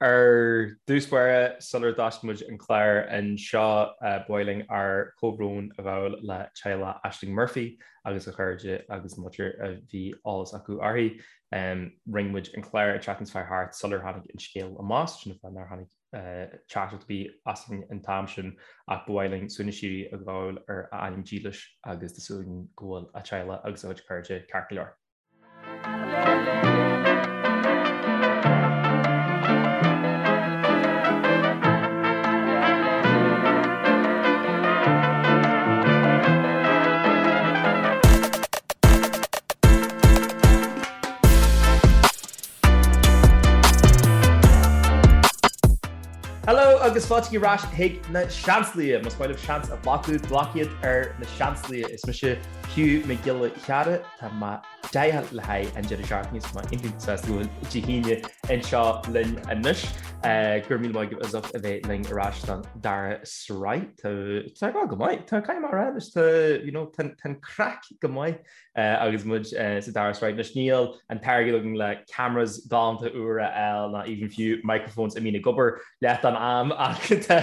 Ar dtús báire, sular dtosaigh muid an clár anseo, ba mhaith linn ár gcomhbhrón a ghabháil le teaghlach Ashling Murphy agus a chairde agus an mhuintir a bhí eolas acu uirthi. Rinne muid an clár an tseachtain seo thart sular tháinig an scéal amach, sin an fáth nár tháinig teachtaireacht ar bith asainn an t-am sin ach ba mhaith linn suaimhneas síoraí a ghabháil ar a anam dílis agus tá súil againn go bhfuil a teaghlach agus a chuid cairde ceart go leor. Hello agus fáilte ar ais chuig na Seansálaithe. Más maith libh seans a ghlacadh, glac iad ar na Seansálaithe. Is mise Hugh Mac Giolla Chearra, tá mé deighilt le haghaidh an deireadh seachtaine is tá mé iontach sásta go bhfuil Dé hAoine anseo linn anois. Go raibh míle maith agaibh as ucht a bheith linn ar ais don dara sraith. Tá tá go maith, tá caithfidh mé a rá anois, tá you know, tá an craic go maith. Agus muid sa dara sraith anois, níl an t-airgead againn le cameras galánta úra a fháil ná even fiú microphones a mbíonn ag obair leath den am ach tá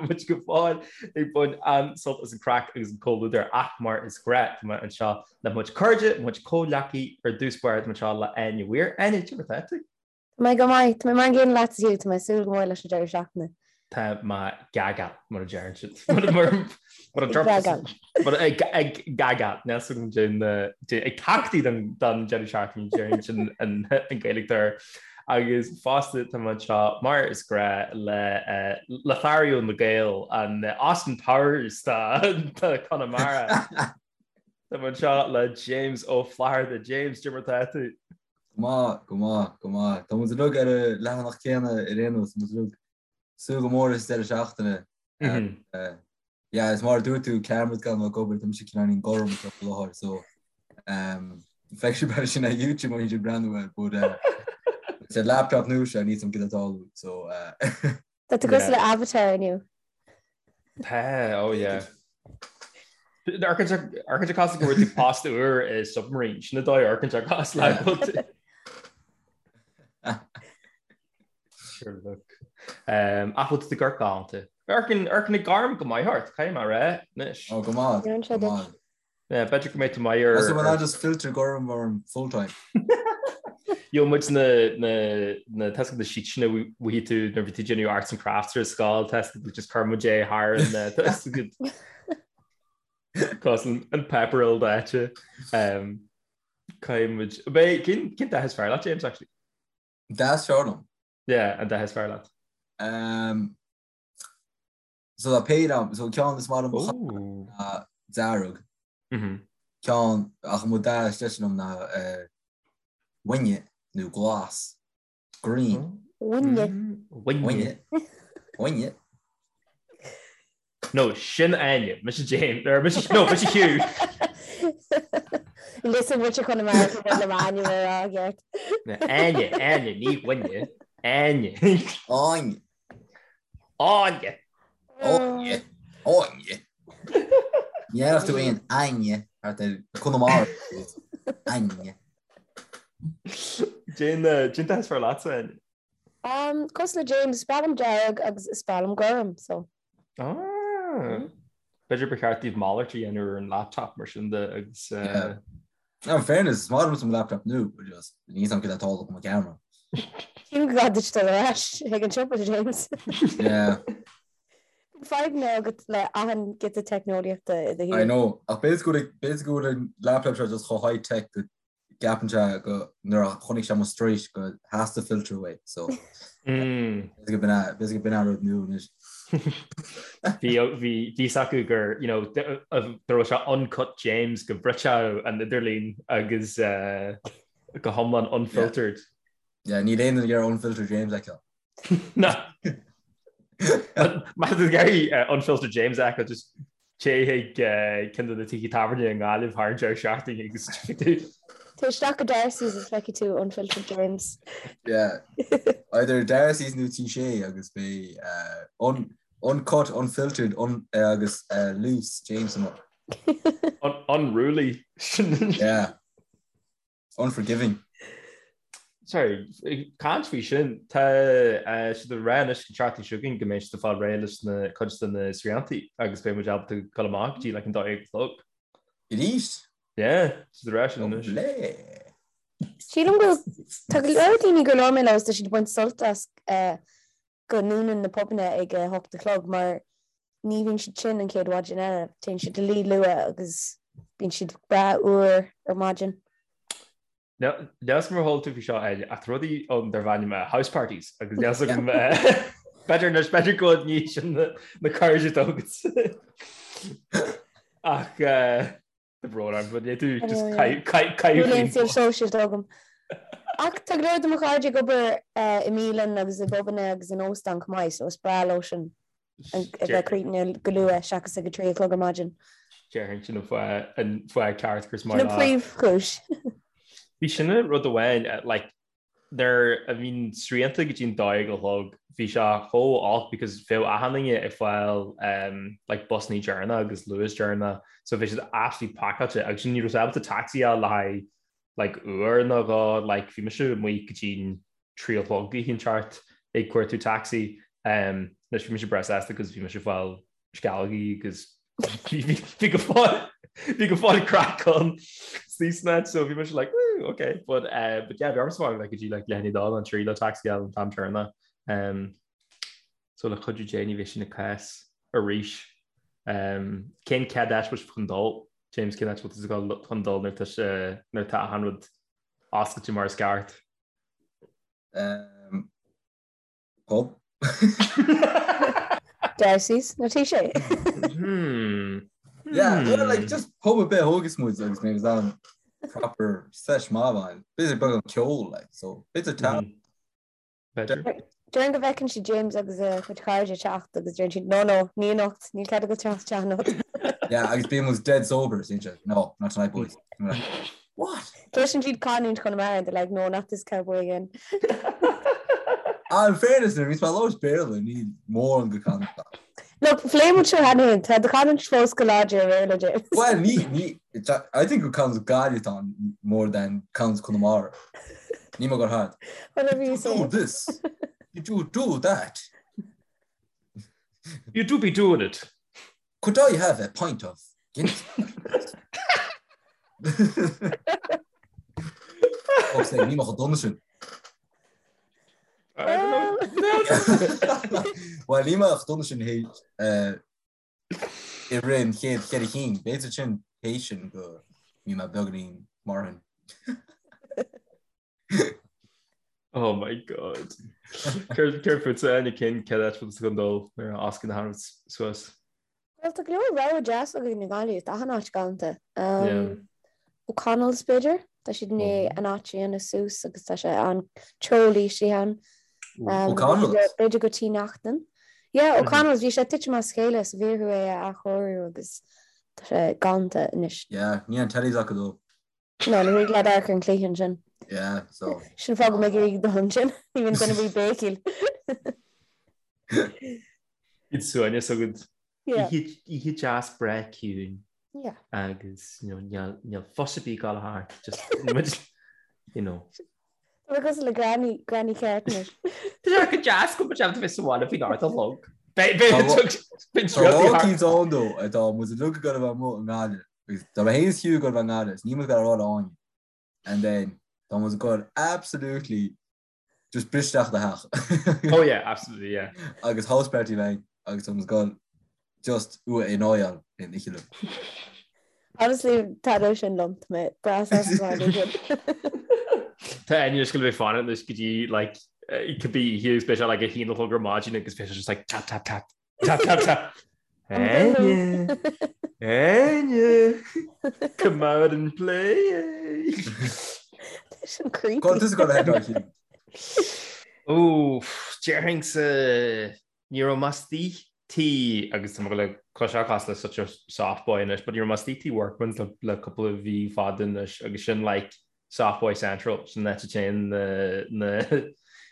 muid go fóill ag baint an-sult as an craic agus an comhluadar ach mar is gnách tá mé anseo le mo chuid cairde, mo chuid comhghleacaí ar dtús báire tá mé anseo le Áine Weir. Áine, cad é mar atá tú? Tá mé go maith. Tá mé mar an gcéanna leat Hugh, tá mé ag súil go mór leis an deireadh seachtaine. Tá mé gaga, mar a deireann siad. Mar a deireann ag gaga, ag tachtadh don deireadh seachtaine deireann sin an Ghaeilge air. Agus fosta tá mé anseo mar is gnách le Lothario na Gael, an Austin Powers de Chonamara. Tá mé anseo le James Ó Flatharta. James, cad é mar atá tú? Go maith, go maith, go maith. Tá muid uilig ar an leathanach céanna ar aon nós, tá muid uilig ag súil go mór leis an deireadh seachtaine. Yeah, is mar a dúirt tú, cameras gan ag obair, tá mise cineáilín gorm faoi láthair, so feicfidh sibh é sin ar YouTube má bhíonn sibh ag breathnú air, but is ar laptop nua seo, níl a fhios agam cad atá ag tarlú, so. Tá tú cosúil le Avatar inniu. Tá, oh yeah. Amharcann sé cosúil go bhfuair tú post úr i submarine, sin an dóigh a amharcann sé cosúil le go bhfuil tú. Sure look. Ach bhfuil tú ag amharc galánta. Amharcann an gorm go maith ort, caithfidh mé a rá anois. Oh, go maith, go maith. Yeah, b'fhéidir go mbeidh tú maith ar. So bhfuil just filter gorm orm full time. Gheobhaidh muid na na na tá a fhios agat na sheets sin a bhí tú nuair bhí tú déanamh arts and crafts ar scoil tá a fhios agat just chuir muid é thar an tá a fhios agat cosúil an páipéar ildaite. Um, Caithfidh muid Beidh cén cén dath is fearr leat James actually? Dath is fearr liom. Yeah, an dath is fearr leat. Um, So tá péire ann, so ceann is maith liom ná dearg. Ceann ach mo dath is deise liom ná uaine nó glas, green. Uaine. Uaine. Uaine. No, sin Áine, mise James, or mise, no, mise Hugh. Listen, muintir Chonamara go bhfuil le m'ainm a rá i gceart. Áine, Áine, ní Uaine, Áine. Áine. Áine! Áine! Áine! Ní dhéanfadh tú aon Áine thart ar Conamara. Áine. Cén dath is fearr leatsa, Áine? Um, cosúil le James, is breá liom dearg agus is breá liom gorm, so. Ah! B'fhéidir ba cheart daoibh malairt a dhéanamh ar an laptop mar sin de agus. Yeah. No, in fairness, is maith liom mo laptop nua, but just níl a fhios agam cad atá ag tarlú le mo camera. Sílim go gcaithfidh duit dul ar ais chuig an siopa, James. Yeah. Fadhbanna agat le achan giota teicneolaíochta i do shaol. I know, ach b'fhéidir go bhfuil b'fhéidir go bhfuil an laptop seo just chomh high tech go gceapann sé go nuair a chonaic sé mo struis go theastaigh filter uaidh, so b'fhéidir go b'in é b'fhéidir go b'in é an rud nua anois. Bhí bhí fhios acu gur you know go raibh sé uncut James go mbrisfeadh an idirlíon agus go hiomlán unfiltered. Yeah, níl aon duine ag iarraidh unfiltered James a fheiceáil. Ná. Má tá tú ag iarraidh unfiltered James a fheiceáil just téigh chuig ceann de na tithe tábhairne i nGaillimh thar an deireadh seachtaine agus feicfidh tú. Téigh isteach go Darcy's is feicfidh tú unfiltered James. Yeah. Either Darcy's nó Tí Sé agus beidh un, uncut, unfiltered, un, agus loose James amuigh. Unruly. Yeah. Unforgiving. Sorry, caint faoi sin, tá siad ag rá anois an tseachtain seo chugainn go mbeidh siad ag fáil réidh leis na cuid de na sriantaí agus beidh muid ábalta dul amach go dtí like an 12 a chlog. Arís? Yeah, siad ag rá sin anois. Lovely. Sílim go tá go leor daoine gur labhair mé leo is tá siad ag baint sult as go ndúnann na pubanna ag a hocht a chlog mar ní bhíonn siad tinn an chéad mhaidin eile, téann siad a luí luath agus bíonn siad breá úr ar maidin. Níl 'fhios agam ar chuala tú faoi seo Áine, ach tá rudaí ann darb ainm house parties agus níl 'fhios agam b'fhéidir anois b'fhéidir go bhfuil ní sin na cairde atá agat. Ach tá brón orm, but tú just caitheamh Níl aon saol sóisialta agam. Ach tá go leor de mo chairde ag obair i mbialann agus i bpubanna agus in óstán chomh maith, so is breá leo sin. a bheith críochnaithe go luath seachas ag a 3 a chlog ar maidin. Déarfainn sin an fáth an fáth ceart gur Sin an príomhchúis. Bhí sin an rud amháin like nuair a bhí na srianta go dtí an 12 a chlog bhí sé chomh olc because bheadh achan duine ag fáil um, like busannaí deireanach agus Luas deireanach so bhí siad absolutely pacáilte agus sin ní raibh ábalta taxi a fháil le haghaidh like uair nó dhó like bhí mise amuigh go dtí 3 a chlog oíche inteacht ag cuartú taxi. Anois bhí mise breá sásta because bhí mise ag fáil sceallógaí agus bhí go fóill bhí go fóill craic ann san áit so bhí mise like woo okay but uh, but yeah bhí ormsa fáil like go dtí like leath i ndiaidh a dó nó a 3 le taxi a fháil an t-am deireanach. Um, so le cuidiú Dé ní bheidh sin an cás arís. Um, cén chéad áit bhfuil sibh chun dul? James cén áit bhfuil tú chun dul nuair tá nuair tá achan rud oscailte mar is ceart? Um, pub. Darcy's, nó tí sé. Hmm. Yeah, well, like, just pub ar bith a thógas muid agus mé an proper sesh maith ann. B'fhéidir beagán ceol, like, so b'fhéidir tá. B'fhéidir. Déarfainn go bhfeiceann siad James agus a chuid cairde ag teacht agus deireann siad, no, no, ní anocht, níl cead agat teacht isteach anocht. Yeah, agus bíonn muid dead sober, is iad, no, not tonight, boys. I'm like, What? Cloiseann siad canúint Chonamara and they're like, no, not this cowboy again. Ah, in fairness, nuair a bhíonns mé ag labhairt Béarla, ní mórán de chanúint. Look, phléigh muid seo cheana féin, tá do chanúint fós go láidir i mBéarla, James. Well, ní, ní, I think gur canúint Gaillimh atá ann more than canúint Chonamara. Ní mo gur hard. Whatever you say. Do this. You do do that. You do be doing it. Could I have a pint of Guinness? Fuck's sake, ní mo dona sin. I don't know. Well, ní mo dona sin hé i rith an chéad cheithre chinn. B'fhéidir sin théis sin go mbí mé beagáinín marthain. Oh my god. Céard fútsa Áine cén chéad áit bhfuil tú chun dul nuair a osclaíonn achan rud suas? Well tá go leor rogha deas againn i nGaillimh, tá achan áit galánta. O'Connell's b'fhéidir, tá siad i ndiaidh an áit a dhéanamh suas agus tá sé an-teolaí istigh ann. O'Connell's? B'fhéidir go Tí Neachtain. Yeah, O'Connell's, bhí sé titim as a chéile so bhí orthu é a athchóiriú agus tá sé galánta anois. Yeah, níl an tellies acu dó. No, ní thig leat amharc ar an chluiche ansin. Yeah, so. Sin fáth go mbeidh ag dul ansin. Ní bhíonn duine ar bith ag béicíl. Iad suaimhneas agat. Yeah. Oíche deas breá ciúin. Yeah. Agus, you know, níl, níl fuss ar bith ag gabháil thart. Just, muid, you know. Tá mé cosúil le granny, granny ceart anois. Tá sé go deas go mbeidh bheith sa bhaile faoin ard a chlog. Beidh, Tá beidh, beidh Tá lá eicínt ann dó atá muid uilig ag gabháil a bheith amuigh i nGaillimh. Agus tá mé féin is Hugh ag gabháil a bheith i nGaillimh, is níl muid ag gabháil a rá le éinne. And then tá muid ag gabháil absolutely just bris isteach i do theach. Oh yeah, absolutely, yeah. Agus house party bheidh agus tá muid ag gabháil just uaidh in oil in oíche liom. Honestly, taitneoidh sin liom, tá mé breá sásta mar sin. Tá Áine just gonna be fanacht anois go dtí like cibé oíche agus beidh sé like 1 a chlog ar maidin agus beidh sé just like tap tap tap tap tap tap. Áine! Áine! Come out and play! Tá sin creepy. Cá bhfuil tusa ag gabháil a head Hugh? Ó, déarfainnse ní raibh mé istigh tí agus tá mé le cloisteáil cosúil le such a soft boy anois, but ní raibh mé istigh tí Workman's le le cúpla mhí fada anois agus sin like soft boy central, sin an áit a dtéann na na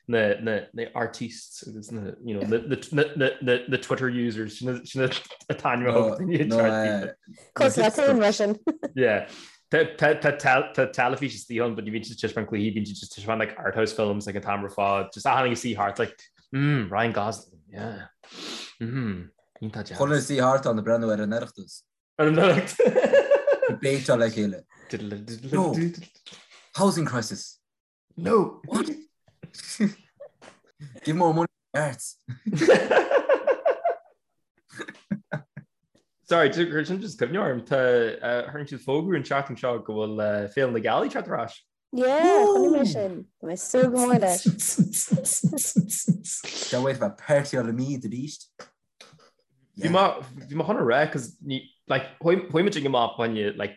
na na na artistes agus na you know na na na na na Twitter users sin sin an t-ainm a thug daoine No, ar Cosúil le féin mar sin. Yeah. Tá teilifís istigh ann, but ní bhíonn siad ag taispeáint cluichí, bíonn siad just ag taispeáint like art house films like an t-am ar fad. Just achan duine ag suí thart like, mm, Ryan Gosling, yeah. Mm, iontach deas. Chuile suí thart ann ag breathnú ar an Oireachtas. Ar an Oireachtas. Ag béiteáil le chéile. No! Housing crisis. No! What? Give more money to the arts. Sorry, chuir sin just cuimhne orm, tá tharraing siad fógra an tseachtain seo go bhfuil Féile na Gealaí ag teacht ar ais. Yeah, chonaic mé sin. Tá mé ag súil go mór leis. Can't wait bheith partyáil i Meath arís. Bhí mé bhí mé chun a rá cos ní like chuaigh muid ag amach fá choinne like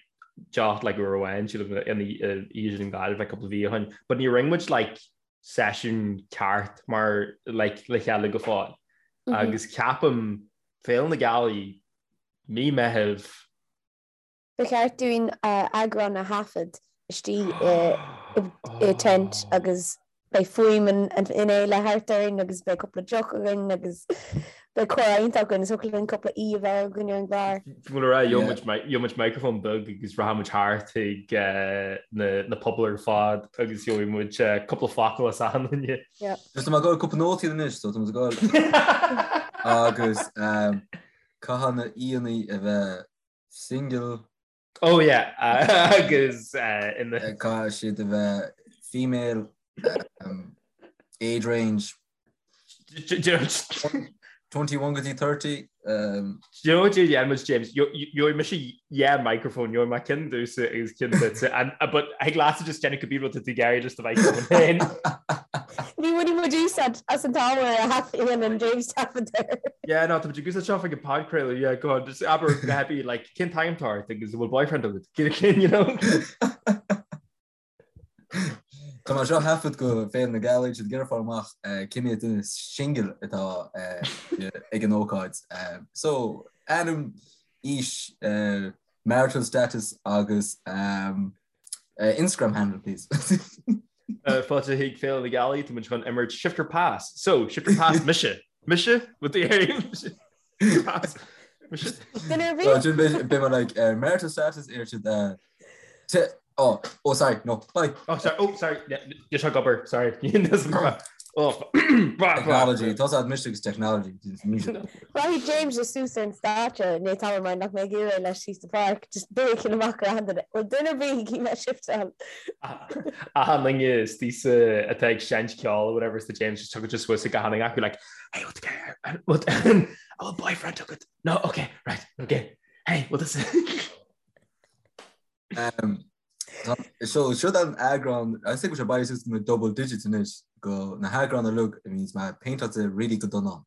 deoch like uair amháin sílim in oíche sin i nGaillimh like cúpla mhí ó shin but ní rinne muid like seisiún ceart mar like le chéile go fóill agus ceapaim Féile na Gealaí mí Meitheamh Ba cheart dúinn eagrán a thaifead istigh i tent agus beidh fuaim an fhéile thart orainn agus beidh cúpla deoch againn agus beidh comhrá iontach againn is thiocfadh linn cúpla aoi a bheith againn ar an gclár. Bhí mé le rá, gheobhaidh muid microphone beag agus rachaidh muid thart chuig na pubaill ar fad agus gheobhaidh muid cúpla focal as achan duine. Just tá mé ag gabháil cúpla nótaí anois so tá muid ag gabháil agus caithfidh na aíonna a bheith Single. Oh yeah, agus ina. Caithfidh siad a bheith female, age range 21 go dtí 30. Do you know what dhéanfaidh muid, James? Gheobhaidh mise dhá microphone, gheobhaidh mé ceann domhsa agus ceann duitse, but thig leatsa just déanamh cibé rud atá tú ag iarraidh just do microphone féin. Ní bhainfidh muid úsáid as an t-ábhar a thaifeadann James taifead air. Yeah, no, tá muid ag úsáid seo chuig an podchraoladh, yeah, go on, just abair go happy, like, cén t-ainm atá ort agus an bhfuil boyfriend agat, cén, you know? Tá mé seo thaifead go Féile na Gealaí, siad ag iarraidh fáil amach cé mhéad duine single atá ag an ócáid. So, ainm, aois, marital status agus Instagram handle, please. Fáilte chuig Féile na Gealaí, tá muid chun imirt Shift or Pass. So, Shift or Pass, mise. Mise? What the hell? Pass. Mise? Duine ar bith? Sin beidh mé like marital status ar siad oh, oh sorry, no, bye. Oh sorry, oh sorry, yeah, seo ag obair, sorry. Oh, Technology, tá siad mise agus technology. Rachaidh James just suas ar an stáitse nó tá mar nach mbeidh iarraidh leis síos sa pháirc, just béiceann amach ar achan duine. Bhfuil duine ar bith ag iarraidh shiftáil? Achan duine istigh atá ag seinnt ceoil or whatever is the James just tugann sé suas ag achan duine acu like hey what the what an bhfuil boyfriend agat? No, okay, right, okay. Hey, what is it? Um, So seo an eagrán I think sé bail suas na double digits anois go na heagráin uilig a bhíonns mé péinteáilte really go dona.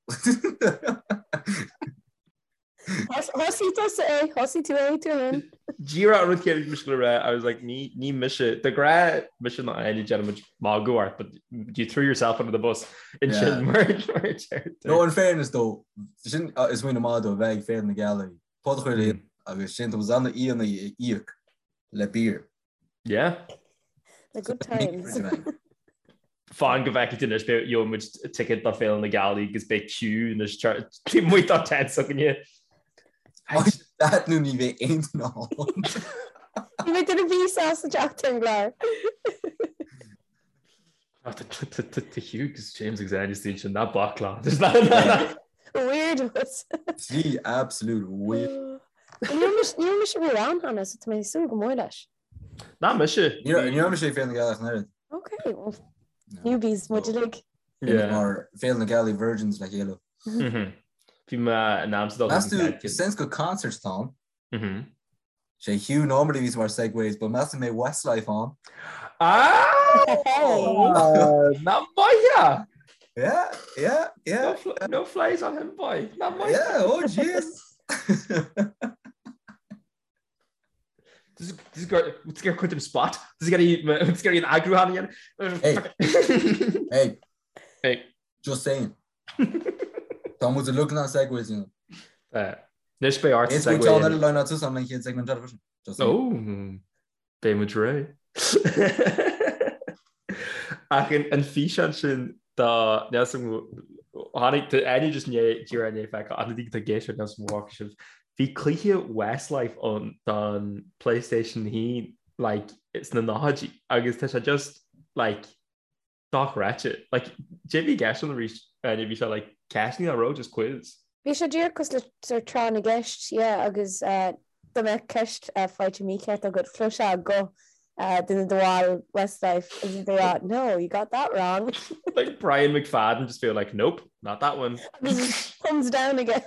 Thosaigh tusa é, thosaigh tú é tú féin. Díreach an rud céanna a bhí mise le rá, I was like ní ní mise de ghnáth mise nó Áine déanaimid magadh ort but you threw yourself under the bus ansin mar mar a deir tú. No in fairness though, sin is smaoineamh maith dó bheith ag Féile na Gealaí, podchraoladh agus sin tá na aíonna a íoc le beer. Yeah. The good times. Fan go bhfeicfidh tú anois beidh gheobhaidh muid ticket do Féile na Gealaí agus beidh queue anois taobh amuigh dá tent s'againne. That nó ní bheidh aon duine ann. Ní bheidh duine ar bith sásta teacht ar an gclár. Tá Hugh agus James agus Áine istigh ansin ná bac leo. Weirdos. Trí absolute weird. Ní raibh mise riamh ann cheana so tá mé ag súil go mór leis. Ná mise. Ní raibh mise ag Féile na Gealaí ach an oiread. Ok, well, newbies muid uilig. Yeah. Mar Féile na Gealaí Virgins le chéile. Bhí mé in Amsterdam. Meas tú, since gur concert atá ann, Sé Hugh normally bhíos mar segues, but meas tú an mbeidh Westlife ann. Ah! Ná maith! Yeah, yeah, yeah. No, fl no flies on him, boy. Ná maith. Yeah, oh jeez. This is gur chuid dem spot. This is getting an eagrúchán again. Hey. Hey. Hey. Just saying. Tá muid uilig na segues, you know. Anois beidh ort Is segue. Is eile line out an chéad segment eile freisin. Just saying. Oh, beidh muid réidh. Ach an físeán sin dá tháinig Áine just díreach i ndiaidh feiceáil ach na daoine atá ag éisteacht níl 'fhios a'm an bhfaca sibh. Bhí cluiche Westlife ann don PlayStation 1. like sna nóchaidí agus tá sé just like dochreidte. Like cad é a bhí i gceist ann arís Áine bhí sé like ceisteanna an raibh just quiz. Bhí sé díreach cosúil le sort tráth na gceist yeah agus dá mbeadh ceist faighte mícheart agat chloisfeá guth duine de bhaill Westlife agus iad ag rá no you got that wrong. Like Brian McFadden just feel like nope not that one. Agus thumbs down aige.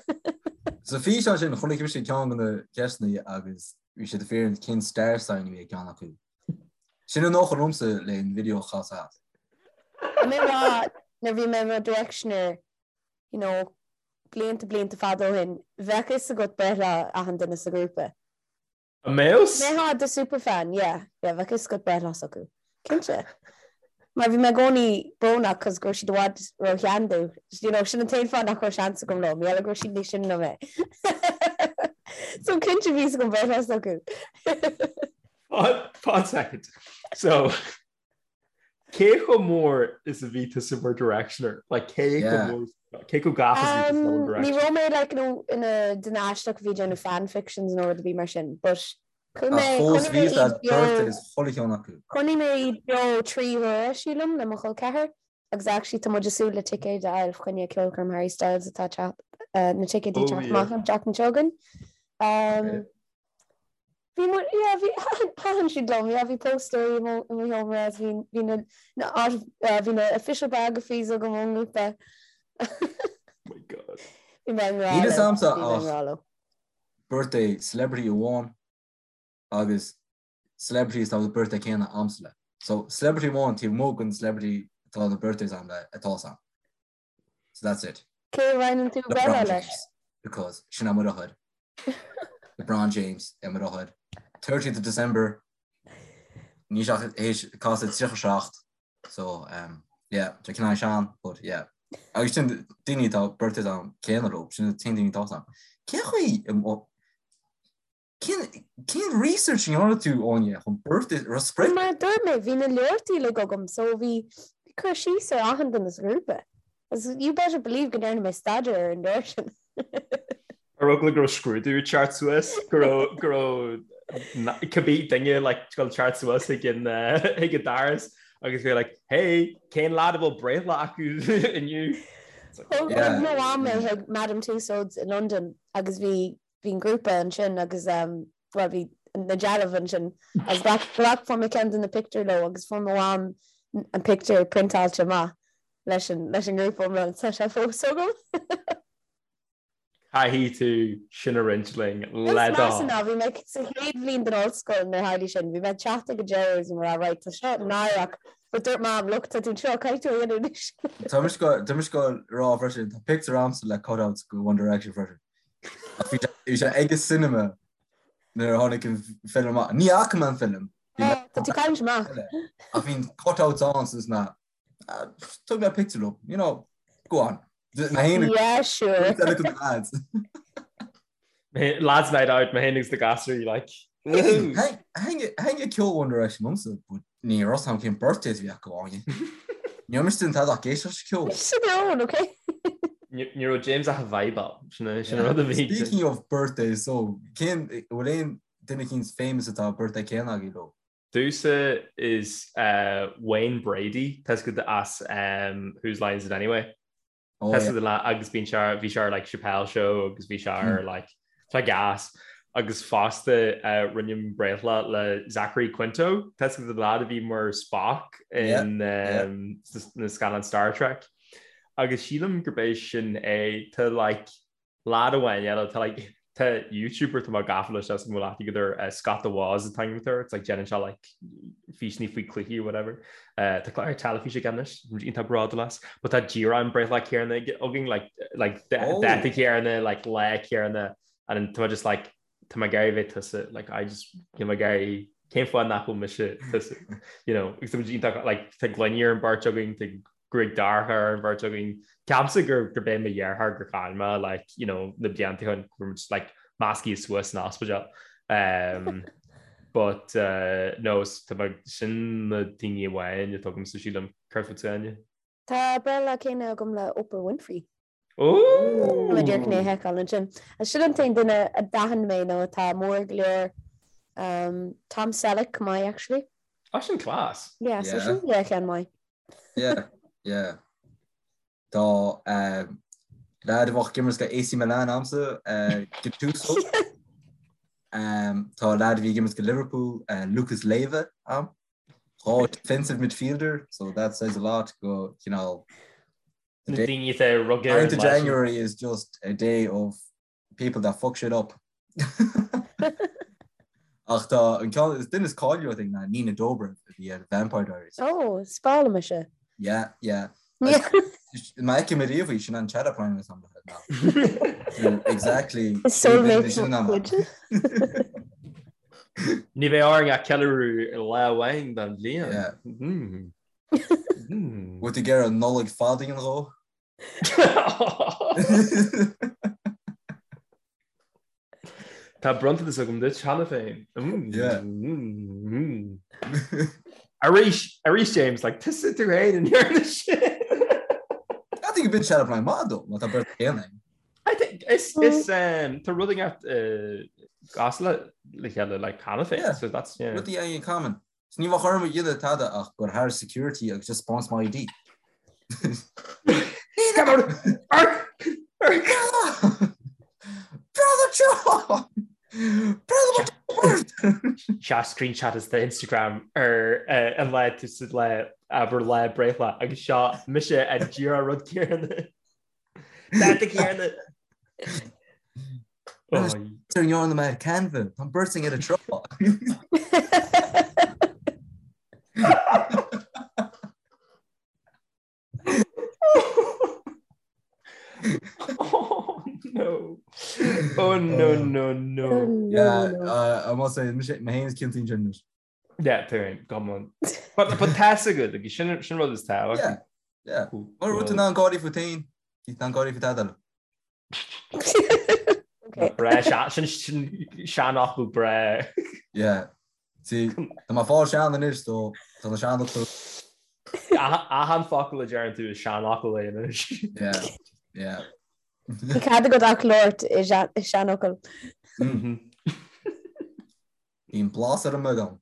Sa físeán sin chonaic mise ceann de na ceisteanna agus bhí siad ag fiafraí cén star sign a bhí ag ceann acu. Sin an dócha liomsa le an video a chas as. Tá mé rá nuair bhí mé i mo Directioner you know blianta blianta fada ó shin bheadh fhios agat breithlá achan duine sa ghrúpa. An mbeadh? Mbeifeá do superfan, yeah, yeah, bheadh fhios agat breithlá s'acu. Cinnte. Mar bhí mé i gcónaí brónach cos go raibh siad i bhfad ró-shean domh. You know, sin an t-aon fáth nach raibh seans agam leo, mar gheall go raibh siad níos sine ná mé. So cinnte bhí fhios agam breithlá s'acu. One second. So, cé chomh mór is a bhí tusa mar Directioner? Like, cé chomh mór, cé chomh gafa is a bhí tusa le One Direction? Ní raibh mé like, you know, ina duine aisteach a bhí ag déanamh fan fictions nó rud ar bith mar sin, but chuaigh mé, chonaic mé iad beo, chonaic mé iad beo 3 huaire, sílim, le mo chol ceathar, agus actually tá muid ag súil le ticéid a fháil fá choinne ceolchoirm Harry Styles atá ag teacht, na ticéid ag teacht amach an tseachtain seo chugainn. Bhí mu, yeah, bhí, thaitin siad liom, yeah, bhí póstaerí i mo, i mo sheomra agus bhí, bhí na, na, bhí na official biographies agam ón ngrúpa. Oh my God. Bhí mé i ngrá Níl fhios a'msa bhí mé i ach ngrá leo. birthday celebrity amháin agus celebrities atá na birthday céanna a'msa le. So celebrity amháin taobh amuigh den celebrity atá na birthdays a'm le atá 'fhios a'm. So that's it. Cé a roinneann tú breithlá leis? Because sin é mo dheartháir. LeBron James é mo dheartháir. 30th of December níl sé ach théis casadh 37 so um, yeah, tá cineál sean but yeah. Agus sin daoine atá birthdays a'm céanna leo, sin na t-aon daoine atá 'fhios a'm. Cén chaoi Cén research a ndearna tú, Áine, chun birthday a spreagadh? Mar a dúirt mé, bhí na leabhartaí uilig agam so bhí cur síos ar achan duine sa ghrúpa. Agus you better believe go ndearna mé staidéar ar an leabhar sin. Ar eagla go raibh scrúdú ag teacht suas, go raibh, go raibh cibé duine like ag dul teacht suas chuig an chuig an doras agus bhí like, hey, cén lad a bhfuil breithlá acu inniu? Thug mo mham mé chuig Madame Tussauds i Londain agus bhí bhí an grúpa ansin agus bhuel bhí na dealbh ansin agus ghlac ghlac fuair mé ceann de na pictiúir leo agus fuair mo mham an pictiúr priontáilte amach leis an leis an ngrúpa iomlán tá sé fós agam. Caithfidh tú sin a roinnt linn le do thoil. Ná bhí mé sa chéad bhliain den ollscoil nuair a tharla sin, bhí mé ag teacht ag an deireadh agus bhí mé ag rá right tá seo náireach but dúirt Mam look tá tú anseo caithfidh tú a dhéanamh anois. Tá mise tá mise ag rá freisin tá pictiúr a'msa le cutouts go One Direction freisin. Ach bhí bhí sé ag an cinema nuair a tháinig an film amach. Ní fhaca mé an film. Tá tú caint amach. Ach bhí an cutouts ann so na Thug mé pictiúr leo, you know, go on. Yeah, sure. Lads. Lads night out, mé féin agus na gasúir, like. Thaitin ceol One Direction liomsa, but ní raibh 'fhios a'm cén birthdays a bhí acu Áine. Ní raibh mise ag déanamh tada ach éisteacht leis an ceol. Sin their own, okay? Ní raibh James ach ag vibeáil, sin an rud a bhí. Speaking of birthdays, so cén bhfuil aon duine eicínt famous atá birthday céanna agaibh leo? Domhsa is Wayne Brady, tá 'fhios agat as Whose Line Is It Anyway? Oh, yeah. Le agus bíonn sé bhí sé ar like Chappelle Show agus bhí sé ar hmm. like tá gas agus fosta uh, roinnim breithlá le Zachary Quinto tá 'fhios agat an lad a bhí mar Spock in yeah, um, yeah. na scannáin Star Trek agus sílim gurb é sin é tá like Lad amháin eile, tá like, tá YouTuber tá mé gafa leis as mo leath agat ar Scott the Woz an t-ainm atá air, it's like déanann sé like físeanna faoi cluichí or whatever. Uh, tá clár teilifíse aige anois, iontach bródúil as, but tá díreach an breithlá céanna againn, like, like oh. dáta céanna, like lá céanna, and tá just like tá mé ag iarraidh bheith tusa, like I just, tá mé ag iarraidh cén fáth nach bhfuil mise tusa, you know, agus tá muid iontach, like tá gloiní ar an bheirt againn, tá gruaig dorcha ar an bheirt againn. Ceapaimse gur gurb é mo dheartháir gur chaill mé like, you know, na blianta ó shin go raibh muid like measctha suas san ospidéal. Um, but uh, no, tá mé sin na daoine amháin atá agamsa sílim céard fútsa Áine. Tá breithlá céanna agam le Oprah Winfrey. Ooh! Tá mé díreach chun é a sheiceáil ansin. Sin an t-aon duine a d'aithin mé nó atá mór go leor. Um, Tom Selleck go maith actually. Ah, sin class. Yeah, so sin yeah ceann maith. Yeah, yeah. Tá um, leaid a bheadh ag imirt do AC Milan a'msa, uh, Gattuso. Um, tá leaid a bhí ag imirt do Liverpool, uh, Lucas Leiva a'm. Tá defensive midfielder, so that says a lot go, you know, Na daoine atá ag rugadh ar an 9th of lá sin. January is just a day of people that fuck shit up. Ach tá an ceann is duine is cáiliúla I think ná Nina Dobrev a bhí ar Vampire Diaries. Oh, is breá liom ise. Yeah, yeah. Má fheicim ariamh í sin an chat up line is am Exactly. Soulmate cuid. Ní bheidh orainn ach ceiliúradh lá amháin den bhliain. Yeah. Bhfuil tú ag iarraidh Nollaig fada a dhéanamh dhó? Tá bronntanas agam duit cheana féin. Arís, arís James, like tusa tú féin a ndearna sin. I think a bit chat up line maith dó, má tá beirt chéanna. I think is is um, tá rud inteacht cosúil le le chéile like cheana féin, Yeah. so that's yeah. Rudaí in common. So ní bheadh orm a dhéanamh tada ach go thar security agus just spáint m'ID. Brother John! Brother Seo screenshot as the Instagram ar eh, an lá tú sa lá abair lá breithlá agus seo mise an díreach rud céanna. Dáta céanna. Ar ndearna mé Canva, tá beirt againn ar an trá. Oh no. Oh no no no. Yeah, uh, I must say, mé féin is ciontaí ansin. Yeah, tú féin, come on. But but tá's agat, agus sin sin rud is tábhacht. Yeah, yeah. Mura bhfuil tú in ann gáirí fút féin, níl tú in ann gáirí faoi tada eile. Okay. Breá, sin sin seanfhocal breá. Yeah. See, tá mé ag fáil sean anois, so tá na seanfhocail. Achan focal a deireann tú is seanfhocal é anois. Yeah, yeah. Ní cead agat ach labhairt i seanfhocail. Mhm. Bíonn blas ar an mbeagán.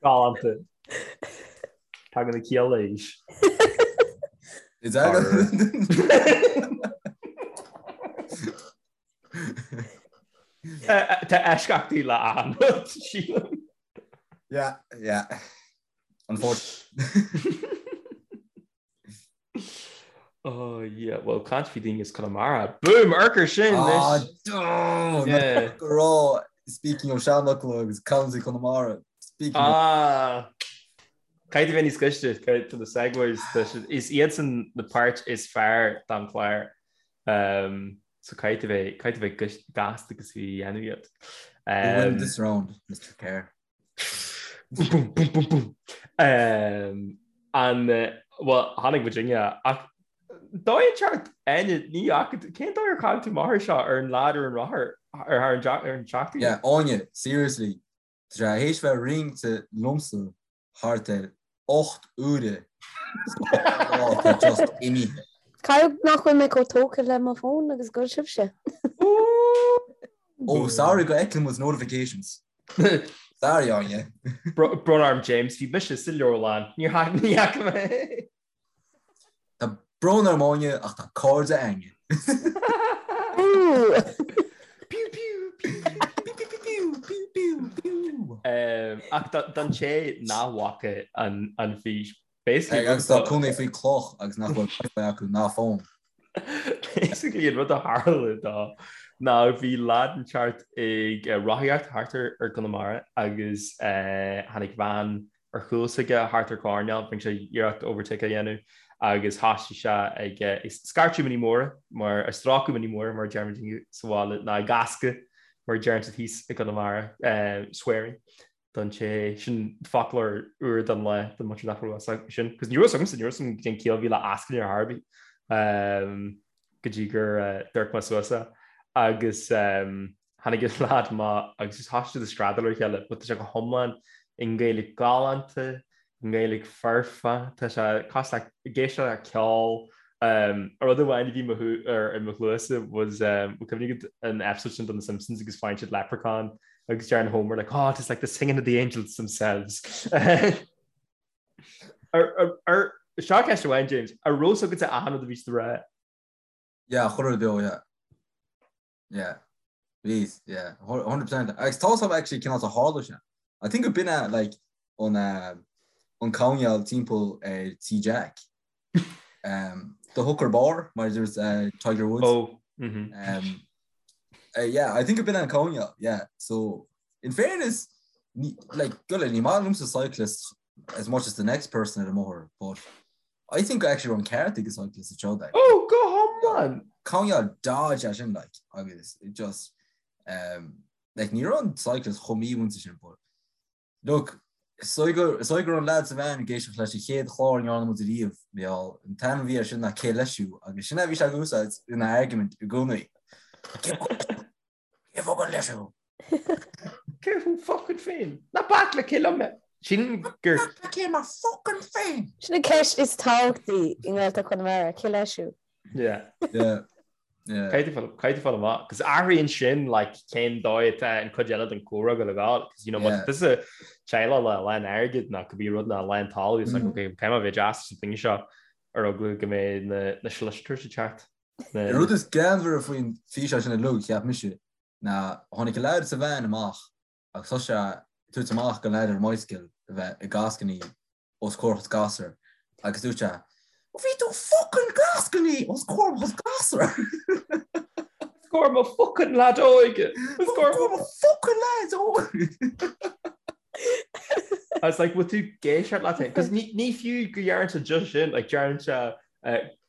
Galánta. Tagann na cialla aois. Is that Tá eisceachtaí le achan rud, sílim. Yeah, yeah. Unfortunately. Oh yeah, well caint faoi daoine as Conamara. Boom, urchar sin Ah, oh, yeah. go raibh speaking of seanfhocail agus County Conamara. Speaking of... Ah, Caithfidh tú bheith níos gaiste to the segues is iadsan na páirt is fearr den chlár. Um, so caithfidh tú bheith caithfidh tú bheith gasta agus bhí dhéanamh iad. Um, win this round, Mr. Kerr. Boom, boom, boom, boom. Um, an well tháinig muidinne ach dóigh an teacht Áine ní fhaca cén dóigh ar chaill tú amach air seo ar an leaid ar an rothar ar thar an ar an tseachtain? Yeah, Áine, seriously, tá sé théis bheith ringte liomsa thart ar 8 uaire tá just imithe. Caithfidh nach bhfuil mé chomh tógtha le mo fón agus go bhfuil sibhse. Oh, sorry go fheiceann muid notifications. Sorry, Áine. Brón orm James, bhí mise sa leabharlann. Níor ní fhaca mé. Tá brón orm Áine ach tá cairde againne. Pew pew pew pew pew pew pew pew. Ach don té nach bhfaca an fís Basically, agus tá cónaí faoi cloch agus nach bhfuil wifi acu ná fón. Basically an rud a tharla dó ná bhí leaid inteacht ag rothaíocht thart ar Conamara agus tháinig veain ar chúl s'aige thart ar choirnéal, rinne sé iarracht overtake a dhéanamh agus thosaigh sé ag scairteadh mionnaí móra mar ag strácadh mionnaí móra mar a deirimid sa bhaile ná ag ascadh mar a deireann siad thíos i gConamara, swearing. don té sin foclóir úr don lá don muintir nach raibh fhios acu sin. Cos ní raibh fhios agamsa, ní raibh fhios agam cén chiall a bhí le ascaill ar chor ar bith go dtí gur d'amharc mé suas é. Agus tháinig an leaid amach agus just thosaigh siad ag screadaíl ar a chéile but tá sé go hiomlán i nGaeilge galánta, i nGaeilge foirfe, tá sé cosúil le ag éisteacht le ceol. Rud amháin a bhí ar i mo chluasa was bhfuil cuimhne agat an episode sin de na Simpsons agus faigheann siad leprechaun? Agus deireann Homer like, oh, it's like the singing of the angels themselves. Ar seo ceist amháin, James, an raibh a fhios agatsa achan rud a bhí siad a rá? Yeah, chuile rud beo, yeah. Yeah. Bhí, yeah, 100%. Agus tá a fhios agam actually cén áit a tharla sé. I think go b'in é like an uh, an coinneal timpeall ar tí Jack. Um, the hooker bar mar a dúirt uh, Tiger Woods. Oh, mm-hmm. Um, uh, yeah, I think go b'in é an coinneal, yeah. So in fairness, ní, like, go ní maith liomsa cyclist as much as the next person ar an mbóthar, but I think actually raibh an ceart ag an cyclist anseo like. Oh, go hiomlán! Coinneal dodge é sin like agus it just um, like ní raibh an cyclist chomh mímhúinte sin but look is dóigh go is dóigh go raibh an lad sa veain ag éisteacht leis an chéad chlár a ndearna muid ariamh Mícheál an t-ainm a bhí air sin ná Cé leis thú agus sin é a bhí sé ag úsáid ina argument i gcónaí. Cé focal leis thú? Cé thú fucking féin? Ná bac le cé liom mé? Sin gur. Cé mé fucking féin? Sin an ceist is tábhachtaí i nGaeltacht Chonamara, cé leis thú? Yeah. Yeah. Yeah. Caithfidh tú fáil amach, cos athraíonn sin like cén dóigh atá an cuid eile den chomhrá ag gabháil, cos you know má tá tusa teaghlach le a lán airgid nó cibé rud nó a lán talamh, it's like okay, caithfidh mé a bheith deas leis an duine seo ar eagla go mbeidh na na solicitors ag teacht. An rud is greannmhaire faoin físeán sin uilig, cheap mise, ná tháinig an leaid sa veain amach agus thosaigh sé ag tabhairt amach don leaid ar an mbicycle a bheith ag gascainí os comhair a chuid gasúr agus dúirt sé, Bhí tú fucking gascainí os comhair mo chuid gasúr! Os comhair mo fucking leaid óige! Os comhair mo fucking leaid óige! I was like, bhfuil tú ag éisteacht leat féin? Cos ní fiú go deireann sé just sin, like deireann sé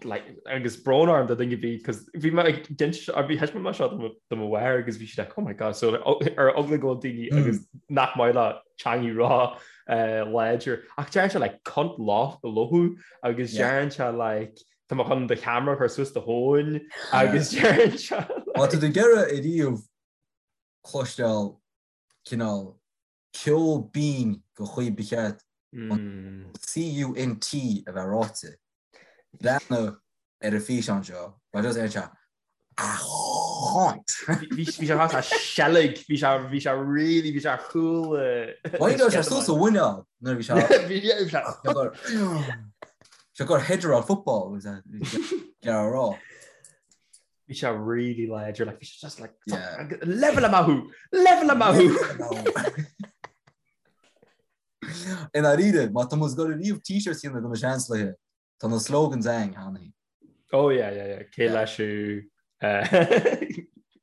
like agus brón orm do dhuine ar bith cos bhí mé ag d'inis bhí thaispeáin mé seo do mo do mo mháthair agus bhí sí like oh my god so ar eagla go bhfuil daoine hmm. agus nach maith leo teangaidh ró eh, láidir ach deireann sé like cunt lothú agus deireann sé like tá mé chun do cheamara a chur suas do thóin agus deireann sé Má tá tú ag iarraidh ariamh cloisteáil cineál ceol binn den chaoi ba cheart an CUNT a bheith ráite. Breathnaigh ar an físeán seo, mar just ar sé a chunt! Bhí sé a seilg, bhí sé bhí sé really bhí sé ar chúl. Why raibh sé suas a mhuineál nuair a bhí sé Bhí sé sé gur header football gearr rá. Bhí sé really láidir, like, bhí sé just like, yeah. level amach thú! Level amach thú! I ndáiríre, má tá muid ag dul ariamh t-shirts a dhéanamh do na Seansálaithe, tá na slogans againn cheana féin. Oh yeah, yeah, yeah. Cé leis thú?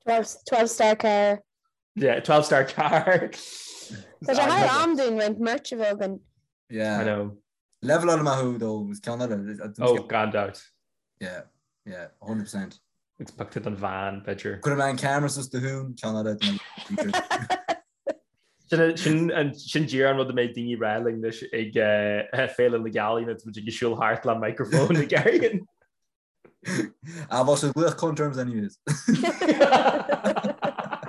12, 12 star car. Yeah, 12 star car. Tá sé thar am dúinn roinnt merch a bheith againn. Yeah. I know. Level amach thú though, is ceann eile. Oh, gan dabht. Yeah, yeah, 100%. It's pictiúr den veain, b'fhéidir. Cuirfidh mé an camera suas do thún, ceann eile. Sin sin díreach an rud a mbeidh daoine ag rá linn anois ag Féile na Gealaí nuair atá muid ag siúl thart le microphone ag éirí. Ah, bheadh siad ag glaoch cunt orms anyways.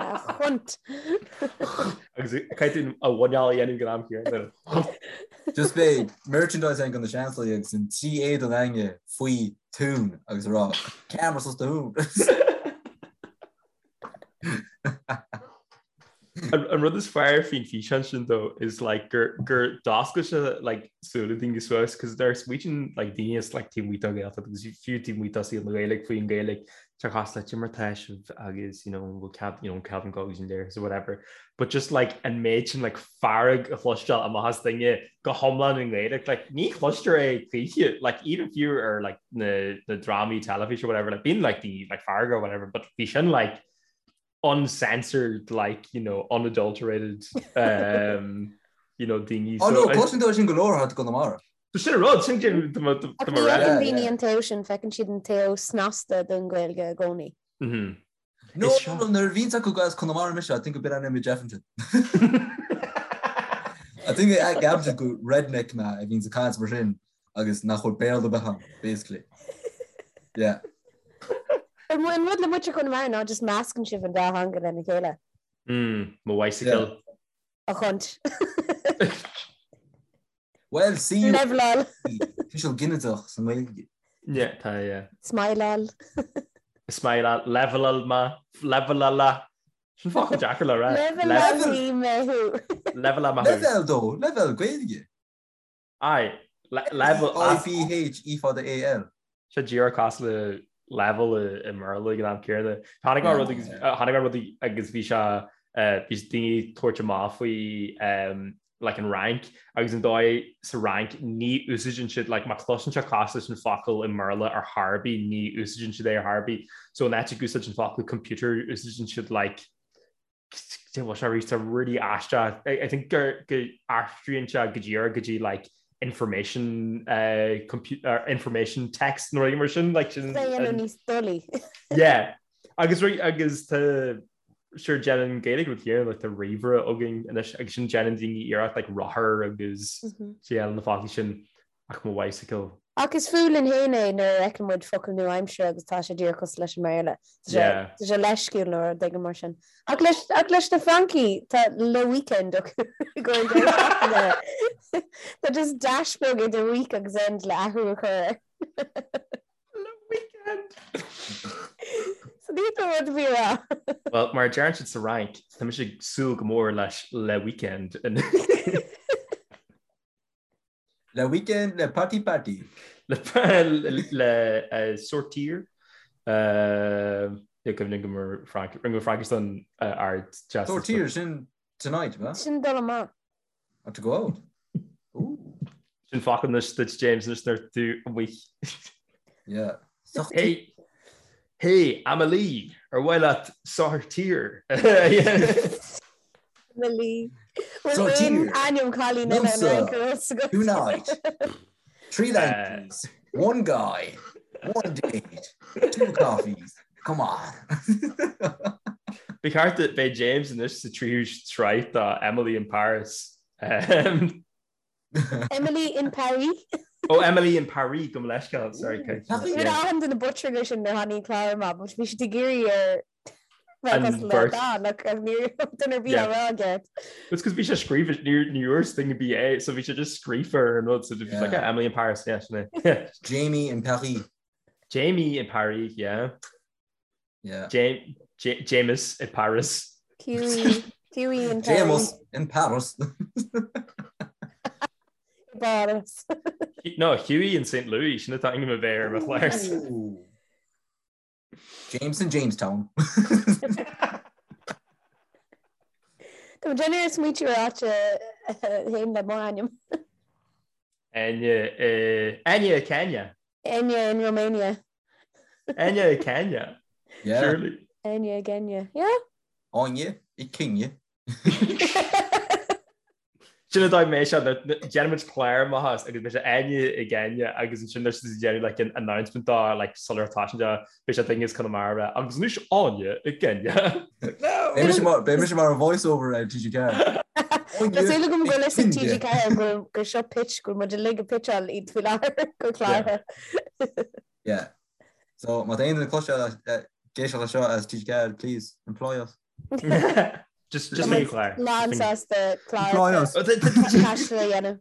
A chunt. Agus caithfidh tú a mhuineál a dhéanamh ag an am céanna. Just beidh merchandise againn do na Seansálaithe agus an trí éadan againne faoi thún agus a rá camera suas do thún. An rud is fearr faoin físeán sin though is like gur gur d'oscail sé like súile daoine suas cos nuair a smaoitíonn like daoine is like taobh amuigh den Ghaeltacht agus fiú taobh amuigh de saol na Gaeilge faoin Ghaeilge tá cosúil le cad é mar atá sibh agus you know an bhfuil cead you know cead an go agus an léir or whatever but just like an méid sin like fearg a chloisteáil amach as duine go hiomlán i nGaeilge like ní chloistear é choíche like even fiú ar like na na drámaí teilifíse or whatever like bíonn like the like fearg or whatever but bhí sin like uncensored like you know unadulterated um, you know daoine Oh no, cloiseann tú sin go leor thart i gConamara. So sin an rud sin Ní fheiceann daoine an taobh sin, feiceann siad an taobh snasta den Ghaeilge i gcónaí. Mhm. No, no, nuair a bhíonns acu as Conamara mise, I think go b'in an image Jefferson. I think I gceapann gur redneck mé a bhíonns ag caint mar sin agus nach bhfuil Béarla ar bith agam, basically. Yeah. An rud le muintir Chonamara ná just meascann sibh an dá theanga lena chéile. Mm, mo bicycle. A chunt. Well, see Leveláil. Tuiseal ginideach sa nGaeilge. Yeah, tá, yeah. Smileáil. Smileáil, leveláil ma, levelála. Sin focal deacair le rá. Leibhéal mé thú. Leibhéal mé thú. Leibhéal dó, leibhéal Gaeilge. Aye, level I B H E fada A L. Sé díreach cosúil le level i mBéarla ag an am céanna. Tháinig mé rud agus tháinig mé rud agus bhí sé bhí daoine ag tabhairt amach faoi like an Fhrainc agus an dóigh sa Fhrainc ní úsáideann siad like má chloiseann sé cosúil leis an focal i mBéarla ar chor ar bith ní úsáideann siad é ar chor ar bith. So in áit ag úsáid an focal computer úsáideann siad like Cé bhfuil sé arís tá really aisteach. I think gur go aistríonn sé go díreach go dtí like information uh, computer information text nó rud mar sin like sin Déanamh níos dolaí. Yeah. Agus agus tá sure déanann Gaeilge rud céanna like tá ríomhaire againn anois agus sin déanann daoine iarracht like rothar agus mm-hmm. na foclaí sin ach mo bicycle. Ach is fuath linn féin é nuair a fheiceann muid focal nua-aimseartha agus tá sé díreach cosúil leis an mBéarla. Tá sé leisciúil nó rud éigin mar sin. Ach leis, ach leis na Francaigh tá le weekend acu i gcomhair an deireadh seachtaine. Tá just dash beag idir week agus end le athrú a chur air. Le weekend! So ní tá rud a bhí rá. Well, mar a deireann siad sa Fhrainc, tá mise ag súil go mór leis le weekend. Le weekend, le party party. Le le sortir. Ní cuimhin go mar Frank, rinne Fraincis don ard Sortir sin tonight, ma? Sin dul amach. Or to go out. Ooh. Sin focal anois duit James anois nuair tú amuigh. Yeah. Hey, hey, Amelie, ar mhaith leat sortir? Amelie. Bhfuil aon ainm cailín eile an Fhrainc ar fhios agat? Tonight. Three languages, one guy, one date, two coffees. Come on. Ba cheart beidh James anois sa tríú sraith de Emily in Paris. Emily in Paris. Oh, Emily in Paris gabh mo leithscéal, sorry. Bhí achan duine butchering sin nuair tháinig an clár amach, but bhí siad ag iarraidh ar bheith le Dan ach ní raibh duine ar bith á rá aige. It's because bhí sé scríofa ní ní dúirt duine ar bith é, so bhí sé just scríofa ar an rud, so just like yeah, Emily in Paris, yeah, sin é. Jamie in Paris. Jamie in Paris, yeah. Yeah. James, James in Paris. Hughie, Hughie in Paris. James in Paris. Paris. No, Hughie in St. Louis, sin atá ainm a bheith ar mo chlár. James in Jamestown. Tá mé ag smaointiú ar áit féin le m'ainm. Enya, Enya Kenya. Enya in Romania. Enya i Kenya. Yeah. Surely. Enya i Kenya. Yeah. Áine i Kenya. Sin an dóigh mé seo, déanaimid clár amach as agus beidh sé Áine i gCeenya agus ansin there's siad ag déanamh like an announcement dá like sular tá sin de beidh sé duine as Conamara agus anois Áine i gCeenya. Like, no! Beidh mise mar beidh mise mar an voice over ar TG4. Tá súil agam go bhfuil fhios ag TG4 go gur seo pitch go bhfuil muid uilig ag pitcháil iad faoi láthair go clártha. Yeah. So má tá aon duine cloisteáil ag éisteacht leis seo as TG4, please employ us. Just just make clár. Lán sásta clár Employ us. taistil a dhéanamh.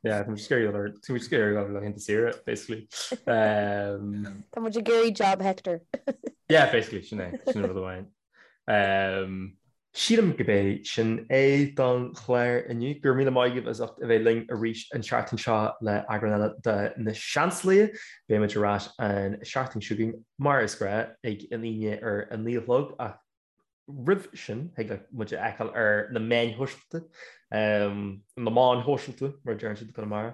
Yeah, I'm just scared or too scared of like into Syria basically. Um, Tá muid ag iarraidh job Hector. yeah, basically sin é sin rud amháin. Um, Sílim gurb é sin é don chlár inniu. Go raibh míle maith agaibh as ucht a bheith linn arís an tseachtain seo le eagrán eile de Na Seansálaithe. Beidh muid ar ais an seachtain seo chugainn mar is gnáth ag an Aoine ar a 9 a chlog ach roimh sin thig leat muid a fheiceáil ar na meáin shóisialta, na meáin shóisialta mar a deireann siad i gConamara.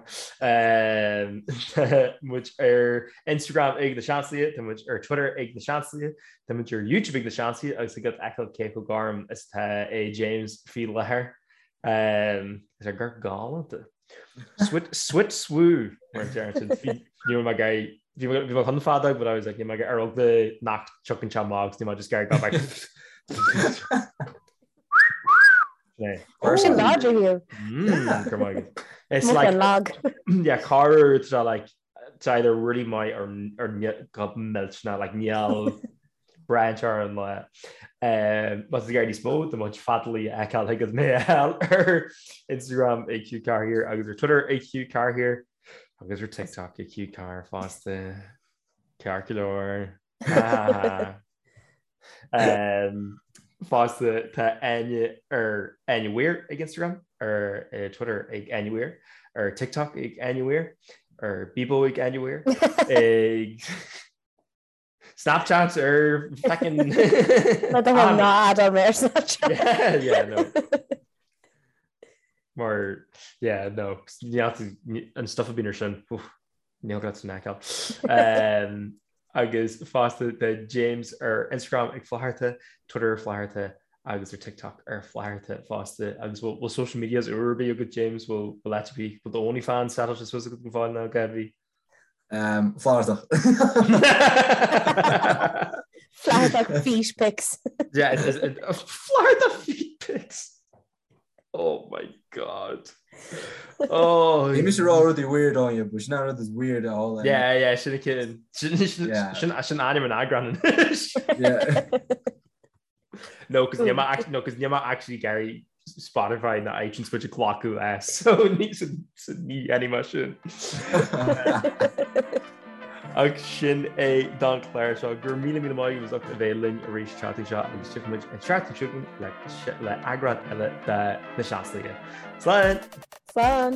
Tá muid ar Instagram ag Na Seansálaithe, tá muid ar Twitter ag Na Seansálaithe, Tá muid ar YouTube ag Na Seansálaithe agus thig leat fheiceáil cé chomh gorm is atá é James faoi láthair. Tá sé go galánta. Swit swit swoo mar a deireann siad. Bhí ní raibh mé ag iarraidh bhí mé bhí mé chun feadóg but I was like níl mé ag ar eagla nach dtiocfainn sé amach agus níl mé just ag iarraidh go back. Oh, sin láidir Hugh. Mm, go maith. It's Much like an lag. yeah, corruair tá like It's either really maith or go millteanach, like níl branch ar an lá. Má tá tú ag iarraidh níos mó de mo chuid feadaíl a fheiceáil thig leat mé a fháil ar Instagram ag Hugh Carr here agus ar Twitter ag Hugh Carr here agus ar TikTok ag Hugh Carr fosta. Ceart go leor. Fosta tá Áine ar Áine Weir ag Instagram, ar Twitter ag Áine Weir, ar TikTok ag Áine Weir, ar Bebo ag Áine Weir, ag Snapchat ar feckin' Le do thoil ná adáil mé ar Snapchat. Yeah, yeah, no. Mar, yeah, no, an stuff a bhíonn ar sin, oof. Níl gá san fheiceáil. Agus fosta tá James ar Instagram ag Flatharta, Twitter ar Flatharta agus ar TikTok ar Flatharta fosta. Agus bhfuil social medias úr ar bith agat James, bhfuil áit ar bith, bhfuil do OnlyFans settláilte suas agat go fóill nó cad bhí? Flathartach. Flathartach feet pics. Yeah, Flathartach feet pics. Oh my God. Oh. Bhí mise ag rá rudaí weird Áine, but sin an rud is weird a all. Yeah, yeah, sin cin. Sin sin ainm an eagrán anois. Yeah. No, cos níl mé no, cos níl mé actually ag iarraidh Spotify ná iTunes muid a ghlacadh as, so ní ní dhéanfaidh mé sin. Ach sin é don chlár seo. Go raibh míle míle maith agaibh as ucht a bheith linn arís an tseachtain seo agus tiocfaidh muid an tseachtain seo chugainn le eagrán eile de Na Seansálaithe. Slán! Slán!